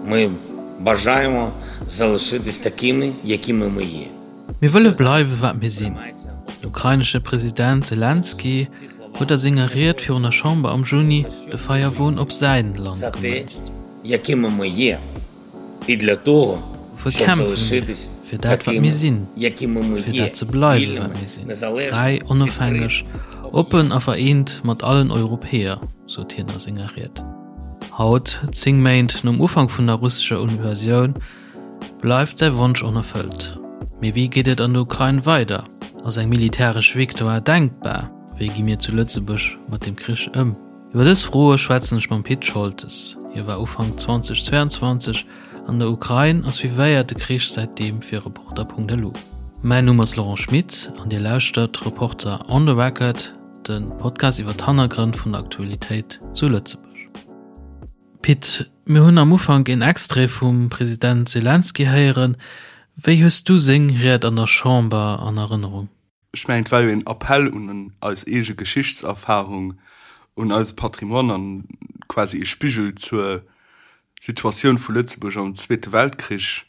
Ми бажаємо залишитись такими, якими ми є. Mir wëlle bleiwe wat mir sinn. Den ukrainesche President Selenskyj huet a senger Ried virun der Chamber am Juni de Feierwon op säin Land gemënzt. Wuer kämpfe mir fir dat wat mir sinn, fir dat ze bleiwe wat mir sinn, fräi, onofhängeg, oppen a vereent mat allen Europäer, sot hien a senger Ried. Haut, 10 Méint nom Ufank vun der russescher Invasioun, bleift säi Wonsch onerfëllt. Mee wéi geet et an der Ukrain weider? Ass eng militäresch Victoire denkbar? Wéi gi mir zu Lëtzebuerg mat dem Krich ëm? Iwwer dës Froe schwätzen ech mam Pit Scholtes. Hie war Ufank 2022 an der Ukrain a suivéiert de Krich säitdeem fir Reporter.lu. Mäin Numm ass Laurent Schmit an Dir lauschtert Reporter on the Record, de Podcast iwwer d'Hannergrënn vun der Aktualitéit zu Lëtzebuerg. Pit, mir hunn am Ufank een Extrait vum President Selenskyj héieren. Wéi hues du seng Ried an der Chamber an Erënnerung? Ech mengen, et war jo een Appell un eis eege Geschichtserfahrung, un eise Patrimoine an quasi ee Spigel zur Situatioun vu Lëtzebuerg am Zweete Weltkrich.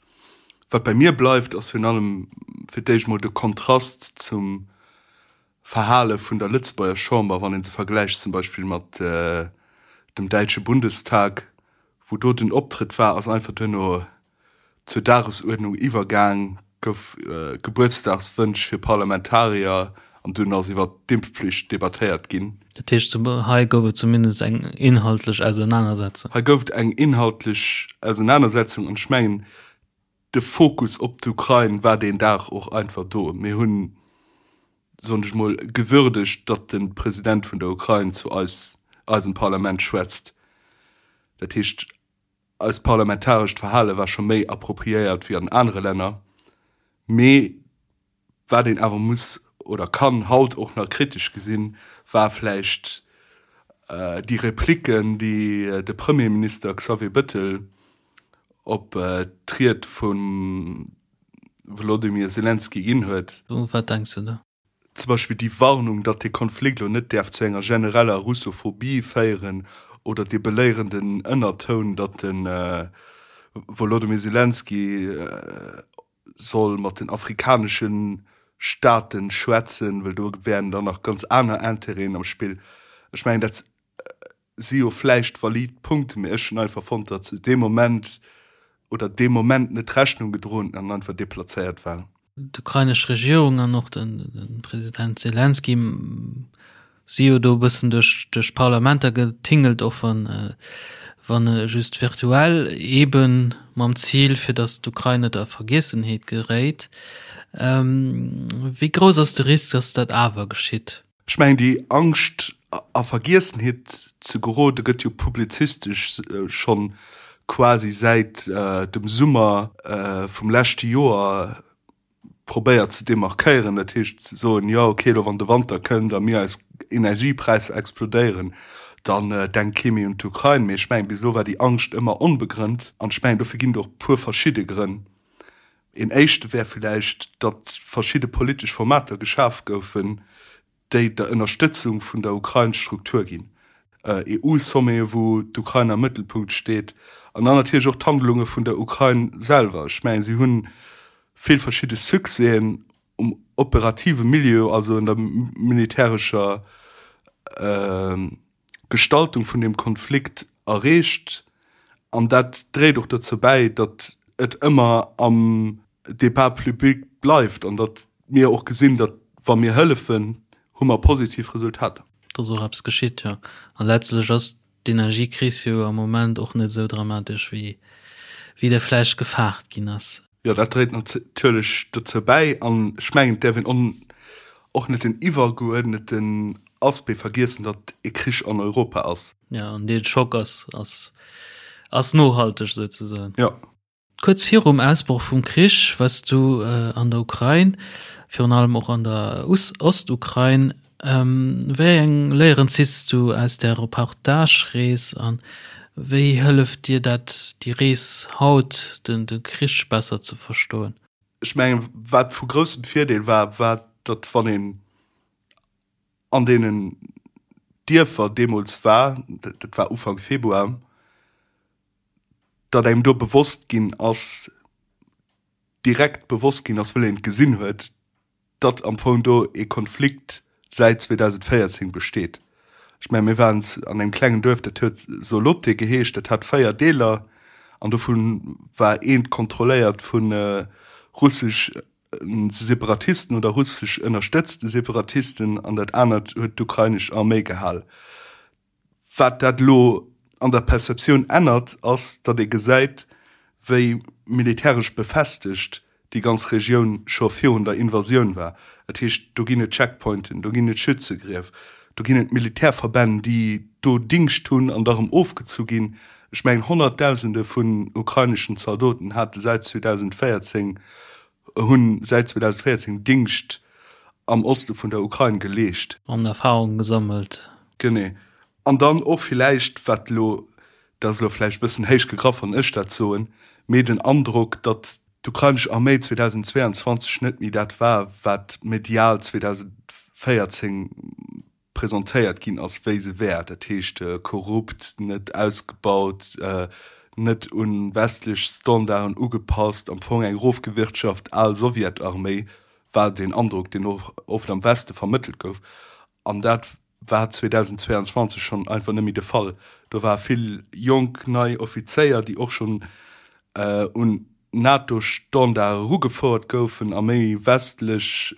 Wat bei mir bleift, ass virun allem fir d'éischt mol de Kontrast zum Verhale vun der Lëtzebuerger Chamber, wann ee se vergläicht zum Beispill mat dem däitsche Bundestag, wou do den Optrëtt war, ass einfach duerno zur Dagesuerdnung iwwergaang, gouf Gebuertsdagswënsch fir Parlamentarier an dunn ass iwwer d'Impfpflicht debattéiert ginn. Dat heescht, hei gouf et zumindest eng inhaltlech Ausernanersetzung. Hei gouf et eng inhaltlech Ausenanersetzung an ech mengen, de Fokus op d'Ukrain war deen Dag och einfach do. Mir hunn, soen ech mol, gewürdegt, datt de President vun der Ukrain zu eis, eisem Parlament schwätzt. Dat heescht, eist parlamentarescht Verhale war scho méi appropriéiert wéi an anere Länner. Mee Wat een awer muss oder kann haut och nach kritesch gesinn, war vläicht déi Replicken, déi de Premierminister Xavier Bettel op d'Ried vum Wolodymyr Selenskyj ginn huet. U wat denks de do? Zum Beispill déi Warnung, datt dee Konflikt elo net däerf zu enger genereller Russophobie féieren oder dee beléierenden Ënnertoun, datt de Wolodymyr Selenskyj soll mat den afrikanesche Staaten schwätzen, well do wären dann nach ganz aner Intérêten am Spill. Ech mengen, dat si jo vläicht valid Punkten, mee ech hunn einfach fonnt, datt se dee Moment oder deem Moment net Rechnung gedroen an einfach deplazéiert waren. D'ukrainesch Regierung an och de President Selenskyj si jo do e bëssen duerch duerch d'Parlamenter getingelt, och wann wann just virtuell, eebe mam Zil, fir datt d'Ukrain net a Vergiessenheet geréit. Wéi grouss ass de Risk, datt dat awer geschitt? Ech mengen, déi Angscht a Vergiessenheet ze gerode gëtt jo publizistesch schonn quasi säit dem Summer vum leschte Joer probéiert ze demarkéieren, dat heescht ze soen, jo okay, elo wann de Wanter kënnt a mir eis Energiepräisser explodéieren, dann denkt kee méi un d'Ukrain. Mee ech mengen, bis elo war déi Angscht ëmmer onbegrënnt an ech mengen, dofir ginn et och e puer verschidde Grënn. Een éischte wär villäicht, datt verschidde politesch Formater geschaf goufen, déi der Ënnerstëtzung vun der Ukrain Struktur ginn, EU-Sommete wou d'Ukrain am Mëttelpunkt steet, an dann natierlech och d'Handlunge vun der Ukrain selwer. Ech mengen, si hunn vill verschidde Succèsen um operative Milieu, also an der militärescher Gestaltung vun deem Konflikt erreecht, an dat dréit och dozou bäi, datt et ëmmer am Débat public bleift an datt mir och gesinn, datt wa mir hëllefen, hu mer positiv Resultater. Datt och eppes geschitt, jo. A letztlech ass d'Energiekris jo am Moment och net esou dramatesch, wéi wéi der vläicht gefaart ginn ass. Jo, dat dréit natierlech dozou bäi. An ech mengen, et däerf een och net den iwwergeuerdneten Aspect vergiessen, datt e Krich an Europa ass. Jo, an dee Schock ass, ass, ass nohalteg souzesoen. Jo. Kuerz virum Ausbroch vum Krich wars du an der Ukrain, virun allem och an der Ostukrain. Wéi eng Léieren ziss du aus där Reportage-Rees a wéi hëlleft dir dat déi Rees haut, de Krich besser ze verstoen? Ech mengen, wat vu groussem Virdeel war, war, datt wann een an deenen Dierfer deemools war, dat war Ufank Februar, Datt engem do bewosst ginn ass, direkt bewosst ginn ass, wëll een et gesinn huet, datt am Fong do ee Konflikt säit 2014 besteet. Ech mengen, mir waren an engem klengen Duerf, dat huet Solote geheescht, dat hat 4 Deeler an dovu war eent kontrolléiert vu russesch Separatisten oder russesch ënnerstëtzte Separatisten an dat anert huet d'ukrainesch Arméi gehal. Wat dat elo an der Perceptioun ännert, ass, datt ee gesäit, wéi militäresch befestegt déi ganz Regioun scho virun der Invasioun war. Dat heescht, do ginn et Checkpointen, do ginn et Schützegrief, do ginn et Militärverbänn, déi do Dingscht hunn an da rëm ofgezu ginn. Ech mengen, Honnertdausende vun ukraineschen Zaldoten hate säit 2014, hunn säit 2014 Dingscht am Oste vun der Ukrain geleescht. An Erfahrung gesammelt. Genee. An dann och villäicht, wat elo, dat ass elo vläicht e bëssen héich gegraff, wann ech dat soen, mee den Androck, datt d'ukrainesch Arméi 2022 net méi dat war, wat medial 2014 presentéiert ginn ass, wéi se wär, dat heescht korrupt, net ausgebaut, net u westlech Standarden ugepasst, am Fong eng erofgewirtschaft al Sowjetarméi, war deen Androck, deen och oft am Weste vermëttelt gouf. An dat war 2022 schonn einfach net méi de Fall. Do ware vill jonk, nei Offizéier, déi och schonn un NATO-Standarde erugefouert goufen a méi westlech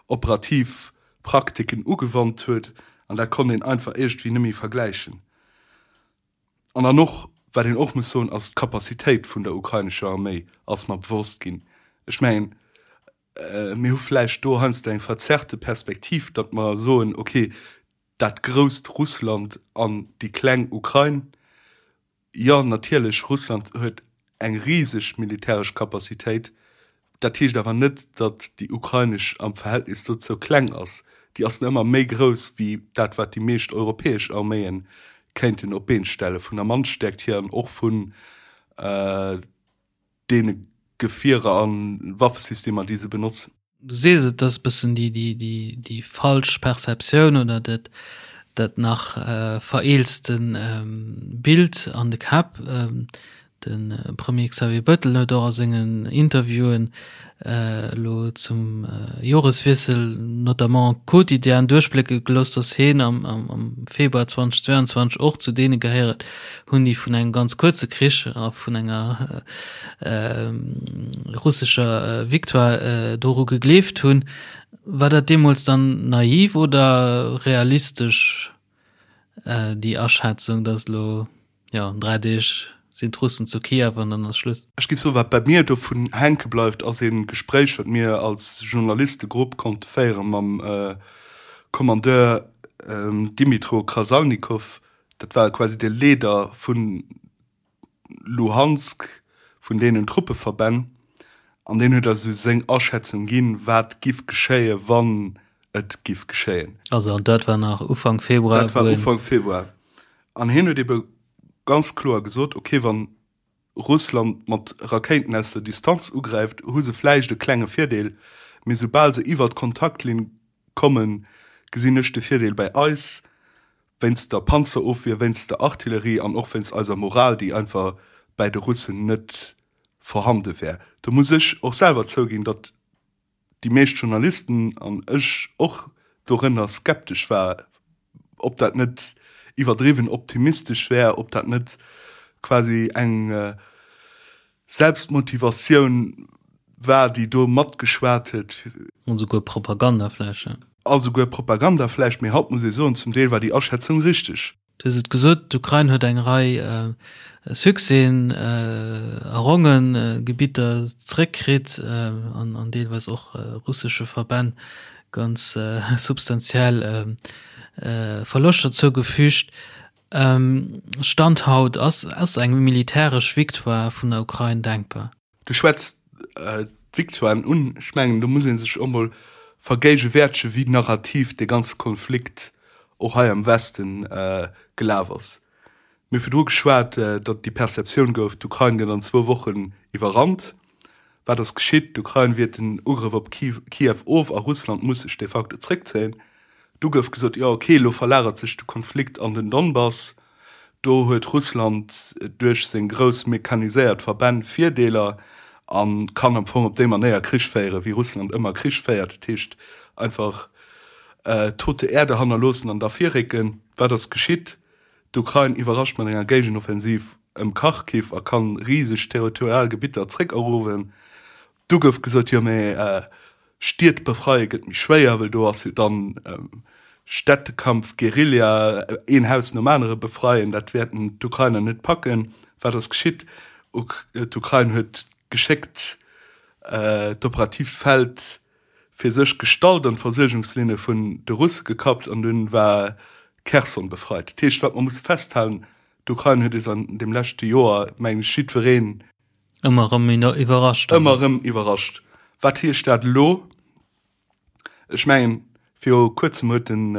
operativ Praktiken ugewannt huet. An dat konnt een einfach iergendwéi net méi vergläichen. An dann och, wat een och muss soen, ass d'Capacitéit vun der ukrainescher Arméi ass mer bewosst ginn. Ech mengen, Mir hu vläicht do heiansdo eng verzerrte Perspektiv, datt mer soen, okay, dat grousst Russland an déi kleng Ukrain. Jo, natierlech, Russland huet eng riseg militäresch Capacitéit. Dat heescht awer net, datt déi ukrainesch am Verhältnis dozou kleng ass. Déi ass nach ëmmer méi grouss wéi dat, wat déi meescht europäesch Arméie kéinten op d'Been stellen, vun der Mannstäerkt hier an och vun deene Gefierer a Waffesystemer, déi se benotzen. Du sees et, dat ass e bëssen déi falsch Perceptioun oder dat nach vereelzte Bild an de Käpp. De Premier Xavier Bettel huet och a sengen Interviewen elo zum Joreswiessel notamment quotidian duerchblécke gelooss, datt hien am Februar 2022 och zu deene gehéiert hunn, déi vun engem ganz kuerze Krich a vun enger russescher Victoire doru gegleeft hunn. War dat deemools dann naiv oder realistesch, déi Aschätzung, datt elo Jo, an 3 Deeg sinn d'Russen zu Kiew an dann ass Schluss. Ech géif soen, wat bei mir dovun hänke bleift, ass ee Gespréich, wat mir als Journalistegrupp konnte féiere mam Kommandeur Dmytro Krasaunikow. Dat war quasi de Leader vu Luhansk, vun deenen Truppeverbänn. An deen huet eis esou seng Aschätzung ginn, wat giff geschéien, wann et giff geschéien. Also an dat war nach Ufank Februar? Dat war Ufank Februar. An hien huet ebe ganz kloer gesot, ok, wann Russland mat Rakéiten aus der Distanz ugräift, hu se vläicht e klenge Virdeel, mee soubal se iwwer d'Kontaktlinn kommen, gesinn ech de Virdeel bei eis, wéinst der Panzerofwier, wéinst der Artillerie an och wéinst eiser Moral, déi einfach bäi de Russen net vorhande wär. Do muss ech och selwer zouginn, datt déi meescht Journalisten, an ech och dorënner, skeptesch war, ob dat net iwwerdriwwen optimistesch wär, ob dat net quasi eng Selbstmotivatioun war, déi do matgeschwat huet. An esouguer Propaganda vläicht, ja. A souguer Propaganda vläicht, mee haut muss ee soen, zum Deel war déi Aschätzung richteg. Du hues et gesot, d'Ukrain huet eng Rei Succèsen errongen, Gebitter zeréckkritt an deelweis och russesche Verbänn ganz substantiell Verloschter zougefügt. Stand haut, ass eng militäresch Victoire vun der Ukrain denkbar? Du schwätz d'Victoiren un. Ech mengen, do muss ee sech och mol vergéigewäertegen, wéi narrativ dee ganze Konflikt och hei am Westen gelaf ass. Mir hu virdru geschwat, datt déi Perceptioun gouf, d'Ukrain gëtt an zwou Wochen iwwerrannt. Wat ass geschitt? D'Ukrain wiert den Ugrëff op Kiew of a Russland muss sech de facto zréckzéien. Du gouf gesot, jo ok, elo verlagert sech de Konflikt an den Donbass. Do huet Russland duerch seng grouss mechaniséiert Verbänn Virdeeler a kann am Fong op déi Manéier Krich féieren, wéi Russland ëmmer Krich féiert, dat heescht einfach tote Erde hannerloossen an da virrécken. Wat ass geschitt? D'Ukrain iwwerrascht mat enger Géigenoffensiv ëm Kharkiv a kann riseg territorial Gebitter zréckeruewen. Du gouf gesot, jo mee Stied befreie gëtt méi schwéier, well do ass jo dann Städtekampf, Guerilla, een Haus nom anere befreien, dat wäerten d'Ukrainer net packen. Wat ass geschitt? D'Ukrain huet geschéckt d'operatiivt Feld fir sech gestallt an d'Versuergungslinne vun de Russe gekappt an dunn war Kherson befreit. Dat heescht, wat mer musse festhalen, d'Ukrain huet eis an deem leschte Joer, mengen ech, jiddwereen, Ëmmer erëm iwwerrascht. Ëmmer erëm iwwerrascht. Wat heescht dat elo? Ech mengen, viru kuerzem huet den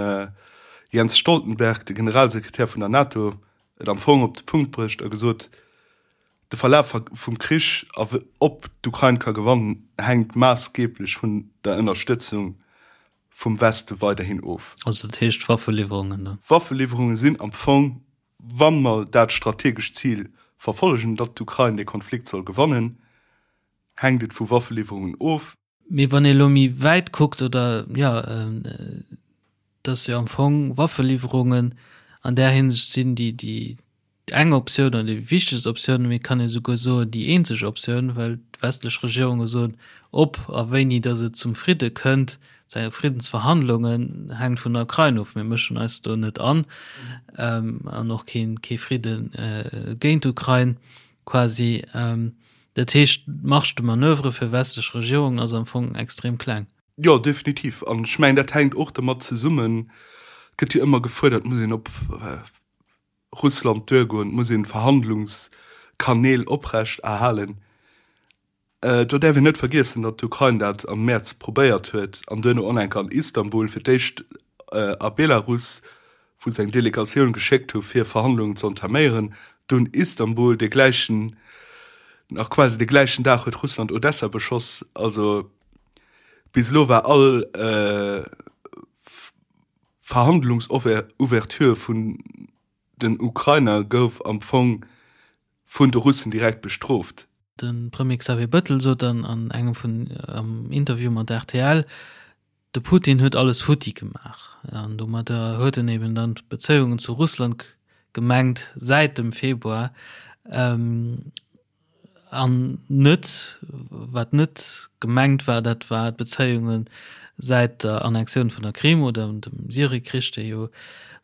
Jens Stoltenberg, de Generalsekretär vun der NATO, et am Fong op de Punkt bruecht a gesot, De Verlaf vum Krich a ob d'Ukrain ka gewannen, hänkt maassgeeblech vun der Ënnerstëtzung vum Weste weiderhin of. Also dat heescht Waffeliwwerungen dann? Waffeliwwerunge sinn am Fong, wa mer dat strategescht Zil verfollegen, datt d'Ukrain dee Konflikt soll gewannen, hänkt et vu Waffeliwwerungen of. Mee wann ee elo méi wäit kuckt, oder jo, dass jo am Fong Waffeliwwerungen an där Hinsicht sinn déi, déi eng Optioun oder déi wichtegst Optioun, mee et kann ee souguer soen, déi eenzeg Optioun, well d'westlech Regierunge soen, ob a wéini dass et zum Fridde kënnt, zu enge Friddensverhandlungen, hänkt vun der Ukrain of. Mir mëschen eis do net an an och kee, kee Fridde géint d'Ukrain quasi. Dat heescht, d'Marge de manoeuvre fir westlech Regierungen ass am Fong extrem kleng. Jo, definitiv. An ech mengen, dat hänkt och dermat zesummen, et gëtt jo ëmmer gefuerdert, et muss een op Russland duergoen, et muss een Verhandlungskanäl oprecht erhalen. Do däerf een net vergiessen, datt d'Ukrain dat am Mäerz probéiert huet an duerno och nach eng Kéier an Istanbul, fir d'éischt a Belarus, wou se eng Delegatioun geschéckt hu fir Verhandlungen ze entaméieren, dunn Istanbul, dee gläichen, nach quasi de gläichen Dag huet Russland Odessa beschoss. Also bis elo war all Verhandlungsouverture vun den Ukrainer gouf am Fong vun de Russen direkt bestrooft. De Premier Xavier Bëttel sot an engem vun am Interview mat rtl, De Putin huet alles futti gemaach an domadder huet en eben dann d'Bezéiungen zu Russland gemengt säit dem Februar an net, wat net gemengt war, dat war d'Bezéiunge säit der Annexioun vun der Krim oder dem Syriekrich, dee jo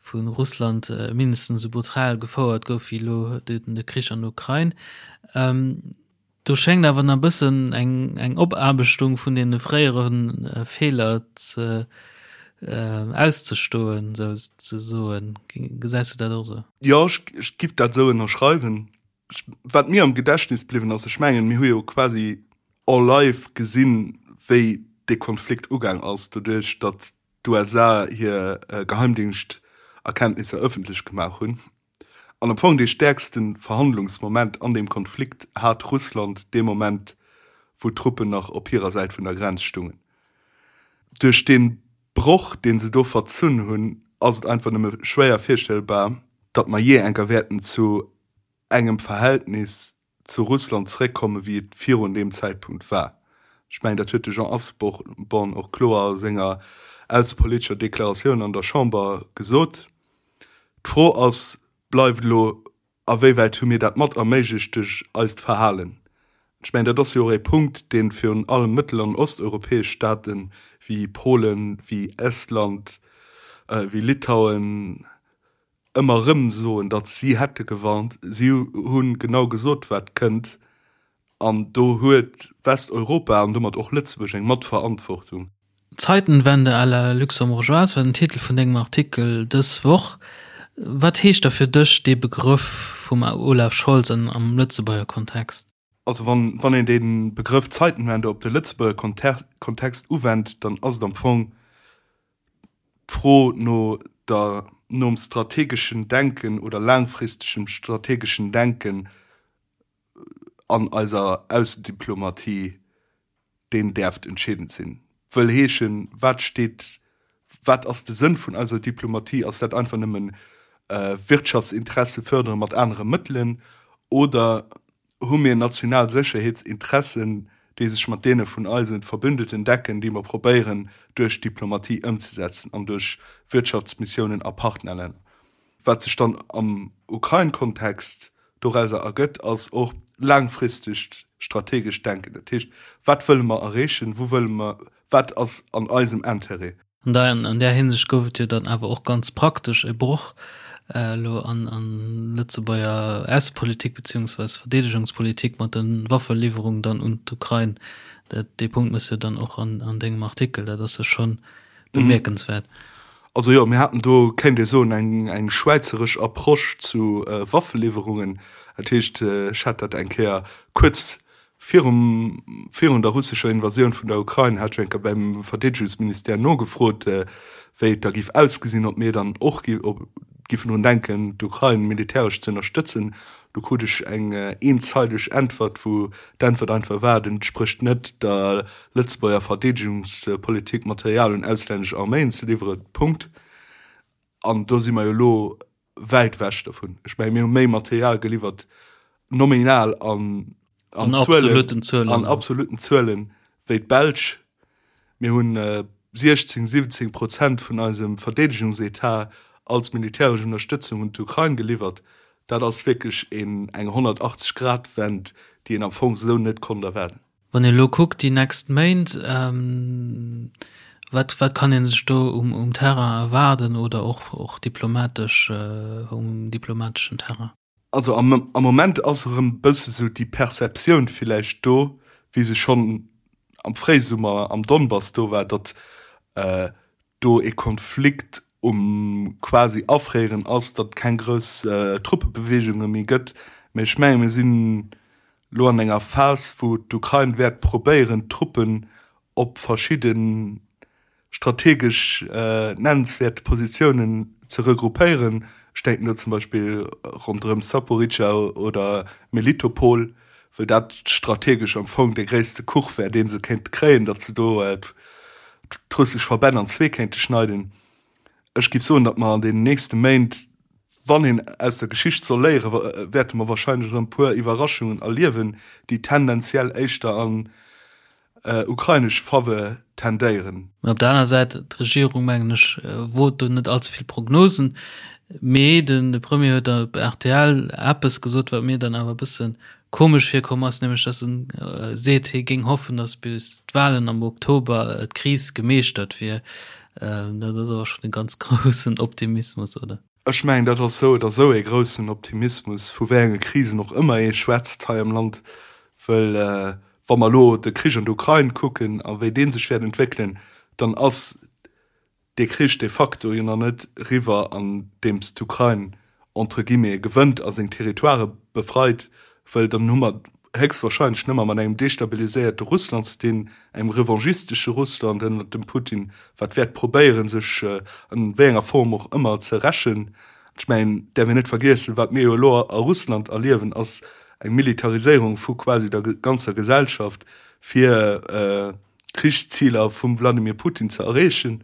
vu Russland mindestens esou brutal gefouert gouf wéi elo de Krich an der Ukrain. Do schéngt awer nach e bëssen eng eng Opaarbechtung vun deene fréiere Feeler ze auszestoen, sou ze soen. Gesäis du dat och esou? Jo, ech giff dat esou ënnerschreiwen. Wat mir am Gedächtnis bliwwen ass, ech mengen, mir hu jo quasi en live gesinn, wéi dee Konflikt ugaang ass, doduerch datt d'USA hir Geheimdingschterkenntnisser ëffentlech gemaach hunn. An am Fong dee stäerkste Verhandlungsmoment an deem Konflikt hat Russland dee Moment, wou d'Truppen nach op hirer Säit vun der Grenz stungen. Duerch dee Broch, dee se do verzunn hunn, ass et einfach nëmme schwéier virstellbar, datt mer jee enker wäerten zu engem Verhältnis zu Russland zeréckkomme wéi et virun deem Zäitpunkt war. Ech mengen, dat huet de Jean Asselborn och kloer a senger aussepolitescher Deklaratioun an der Chamber gesot. D'Fro ass, bleift elo, a wéiwäit hu mir dat mat erméiglecht duerch eist Verhalen? Ech mengen, dat ass jo och ee Punkt, dee virun allem mëttel an osteuropäesch Staaten, wéi Polen, wéi Estland, wéi Litauen, ëmmer erëm soen, datt si hätte gewarnt. Si hu genau gesot, wat kënnt. An do huet Westeuropa an domat och Lëtzebuerg eng Matverantwortung. Zeitenwende à la luxembourgeoise war den Titel vun dengem Artikel dës Woch. Wat heescht da fir dech dee Begrëff vum Olaf Scholz an am Lëtzebuerger Kontext? Also wann wann een dee Begrëff Zeitenwende op de Lëtzebuerger Kontext uwennt, dann ass et am Fong d'Fro no der nom strategeschen Denken oder laangfristegem strategeschen Denken an eiser Aussendiplomatie, deen däerft entscheedend sinn. Wëll heeschen, wat steet, wat ass de Sënn vun eiser Diplomatie? Ass dat einfach nëmmen. Wirtschaftsinteresse fërdere mat anere Mëttelen oder hu mir national Sécherheetsinteressen, déi sech mat deene vun eise Verbündeten decken, déi mer probéieren duerch Diplomatie ëmzesetzen an duerch Wirtschaftsmissiounen a Partnerlänner. Wat sech dann am Ukrain-Kontext dorauser ergëtt, ass och laangfristegt strategescht Denken. Dat heescht, wat wëlle mer erreechen, wou wëlle mer, wat ass an eisem Intérêt? An an där Hinsicht gouf et jo dann awer och ganz praktesch e Broch elo an an Lëtzebuerger Aussepolitik beziehungsweis Verdeedegungspolitik mat de Waffeliwwerungen dann un d'Ukrain. Dat, dee Punkt méchs jo dann och an an dengem Artikel. Dat ass jo schonn bemierkenswäert. Also jo, mir haten do, kéint ee soen, eng eng schwäizeresch Approche zu Waffeliwwerungen. Dat heescht, ech hat dat eng Kéier kuerz Virum, virun der russescher Invasioun vun der Ukrain hat ech eng Kéier beim Verdeedegungsministère nogefrot, wéi et da géif ausgesinn, ob mir dann och giffen drun denken, d'Ukrain militäresch ze ënnerstëtzen. Do krut ech eng eenzeileg Äntwert, wou d'Äntwert einfach war, et entsprécht net der Lëtzebuerger Verdeedegungspolitik, Material un auslännesch Arméien ze liwweren. Punkt. An do si mer jo elo wäit ewech dovun. Ech mengen, mir hu méi Material geliwwert, nominal an, an, an absoluten Zuelen, an absoluten Zuelen wéi d'Belsch. Mir hunn 16, 17 Prozent vun eisem Verdeedegungsetat als militäresch Ënnerstëtzung un d'Ukrain geliwwert. Dat ass wierklech een, eng 180-Grad-Wend, déi een am Fong esou net konnt erwaarden. Wann een elo kuckt déi nächst Méint, wat wat kann ee sech do um um Terrain erwaarden oder och och diplomatesch um diplomateschen Terrain? Also am am Moment ass erëm e bësse sou déi Perceptioun villäicht do, wéi se schonn am Fréisummer am Donbass do war, datt do ee Konflikt um quasi afréieren ass, datt et keng grouss Truppebeweegunge méi gëtt. Mä ech menge mir sinn elo an enger Phas, wou d'Ukrain wäert probéieren, d'Truppen op verschidde strategesch nennenswäert Positiounen ze regroupéieren. Ech denken do zum Beispill ronderëm Saporizhzhia oder Melitopol, well dat strategesch am Fong dee gréisste Kuch wär, dee se kéinte kréien, datt se do d'russesch Verbänn an zwee kéinte schneiden. Ech géif soen, datt mer an deenen nächste Méint, wann een aus der Geschicht soll léieren, wäerte mer wahrscheinlech erëm e puer Iwwerraschungen erliewen, déi tendenziell éischter an ukrainesch Fawe tendéieren. Mä op der aner Säit, d'Regierung, mengen ech, wot do net allze vill Prognosen. Mee de Premier huet op rtl eppes gesot, wat mir dann awer e bësse komesch virkomm ass, nämlech datt en seet, hie géing hoffen, datt bis d'Wahlen am Oktober d'Kris gemeeschtert wier. Dat ass awer schonn e ganz groussen Optimismus, oder? Ech mengen, dat ass esou oder esou ee groussen Optimismus, vu wéi enge Krisen och ëmmer ee schwätzt hei am Land, wëll wa mer elo de Krich an der Ukrain kucken a wéi dee sech wäert entwéckelen, dann ass dee Krich de facto jo nach net eriwwer, andeems d'Ukrain entre guillemets gewënnt a seng Territoirë befreit, wëll dann hu mer héchstwahrscheinlech nëmmer mat engem destabiliséierte Russland ze dinn, engem revanchistesche Russland ënnert dem Putin, wat wäert probéieren, sech an wéi enger Form och ëmmer ze rächen. Ech mengen, däerf een net vergiessen, wat mir jo elo a Russland erliewen, ass eng Militariséierung vu quasi der ganzer Gesellschaft, fir Krichsziler vum Wladimir Putin ze erreechen.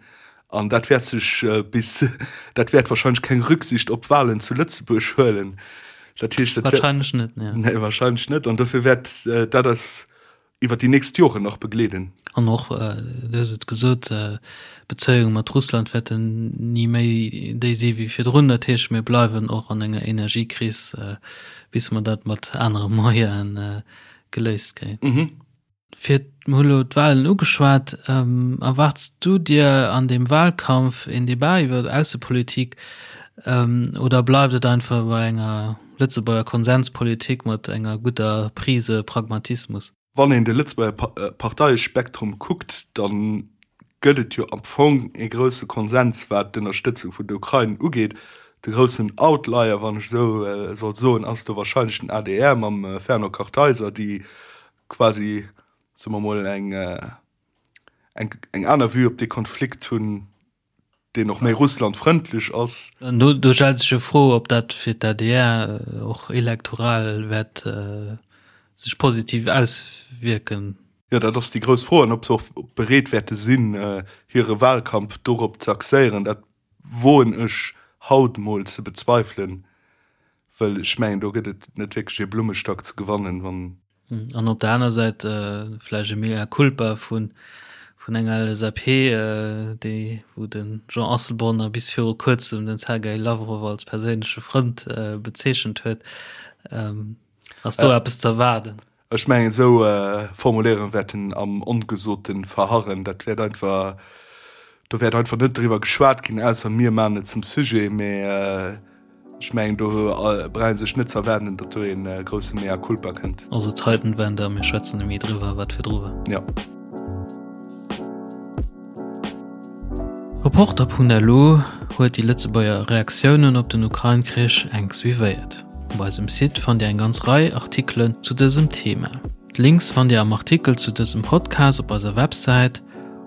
An dat wäert sech bis, dat wäert wahrscheinlech keng Rücksicht op Wahlen zu Lëtzebuerg huelen. Dat heescht, dat wäert. Wahrscheinlech net, nee. Nee, wahrscheinlech net. An dofir wäert dat eis iwwer déi nächst Joren nach begleeden. An och, du hues et gesot, d'Bezéiunge mat Russland wäerten ni méi déi si wéi virdrun. Dat heescht, mir bleiwen och an enger Energiekris, bis mer dat mat anere Moyene geléist kréien. Fir, mir hu lo d'Wahlen ugeschwat, erwaarts du dir an deem Wahlkampf een Debat iwwer Aussepolitik oder bleift et einfach bei enger Lëtzebuerger Konsenspolitik mat enger gudder Prise Pragmatismus? Wann een de Lëtzebuerger Parteiespektrum kuckt, da gëtt et jo am Fong ee grousse Konsens wat d'Ënnerstëtzung vun der Ukrain ugeet. De groussen Outlier, wann ech esou soll soen, ass do wahrscheinlech den adr mam Fernand Kartheiser, déi quasi, soe mer mol, eng, eng, eng aner Vue op dee Konflikt hunn, deen och méi russlandfrëndlech ass. An do, do stellt sech jo d'Fro, ob dat fir d'ADR och elektoral wäert sech positiv auswierken. Jo, dat ass déi grouss Fro. An ob se och bereet wäerte sinn, hire Wahlkampf dorop ze axéieren, dat woen ech. haut mol ze bezweifelen, well ech mengen do gëtt et net wierklech ee Blummestack ze gewannen, wann. An op der aner Säit vläicht e Mea culpa vun enger LSAP, déi, wou de Jean Asselborn nach bis viru kuerzem den Sergei Lavrov als perséinleche Frënd bezeechent huet. Ass do eppes ze erwaarden? Ech mengen, esou Formuléierunge wäerten am Ongesote verharren. Dat wäert einfach, do wäert einfach net driwwer geschwat ginn, ausser mir maachen et zum Sujet. Mee ech mengen, do brauch ee sech net ze erwaarden, datt do ee grousse Mea culpa kënnt. Also Zeitenwende a mir schwätzen net méi driwwer, wat virdru war. Jo. Reporter.lu huet déi Lëtzebuerger Reaktiounen op den Ukrain-Krich enk suivéiert. Op eisem Site fannt Dir eng ganz Rei Artikelen zu dësem Thema. D'Links fannt Dir am Artikel zu dësem Podcast op eiser Websäit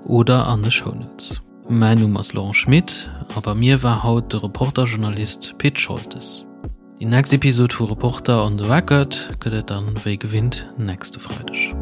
oder an de Shownotes. Mäin Numm ass Laurent Schmit a bei mir war haut de Reporter-Journalist Pit Scholtes. Déi nächst Episod vu Reporter on the Record gëtt et dann wéi gewinnt nächste Freideg.